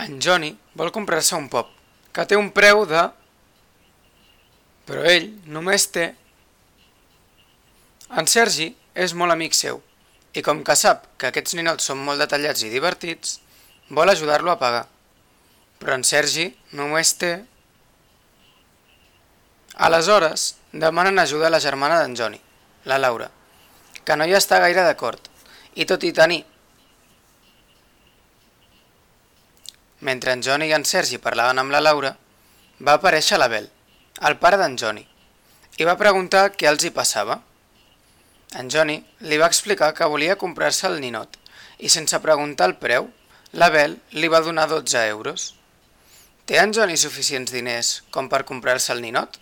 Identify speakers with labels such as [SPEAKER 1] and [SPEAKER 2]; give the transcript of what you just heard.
[SPEAKER 1] En Johnny vol comprar-se un pop, que té un preu de... Però ell només té... En Sergi és molt amic seu, i com que sap que aquests ninots són molt detallats i divertits, vol ajudar-lo a pagar. Però en Sergi només té... Aleshores, demanen ajuda a la germana d'en Johnny, la Laura, que no hi està gaire d'acord, i tot i tenir... Mentre en Johnny i en Sergi parlaven amb la Laura, va aparèixer l'Abel, el pare d'en Johnny, i va preguntar què els hi passava. En Johnny li va explicar que volia comprar-se el ninot, i sense preguntar el preu, l'Abel li va donar 12 euros. Té en Johnny suficients diners com per comprar-se el ninot?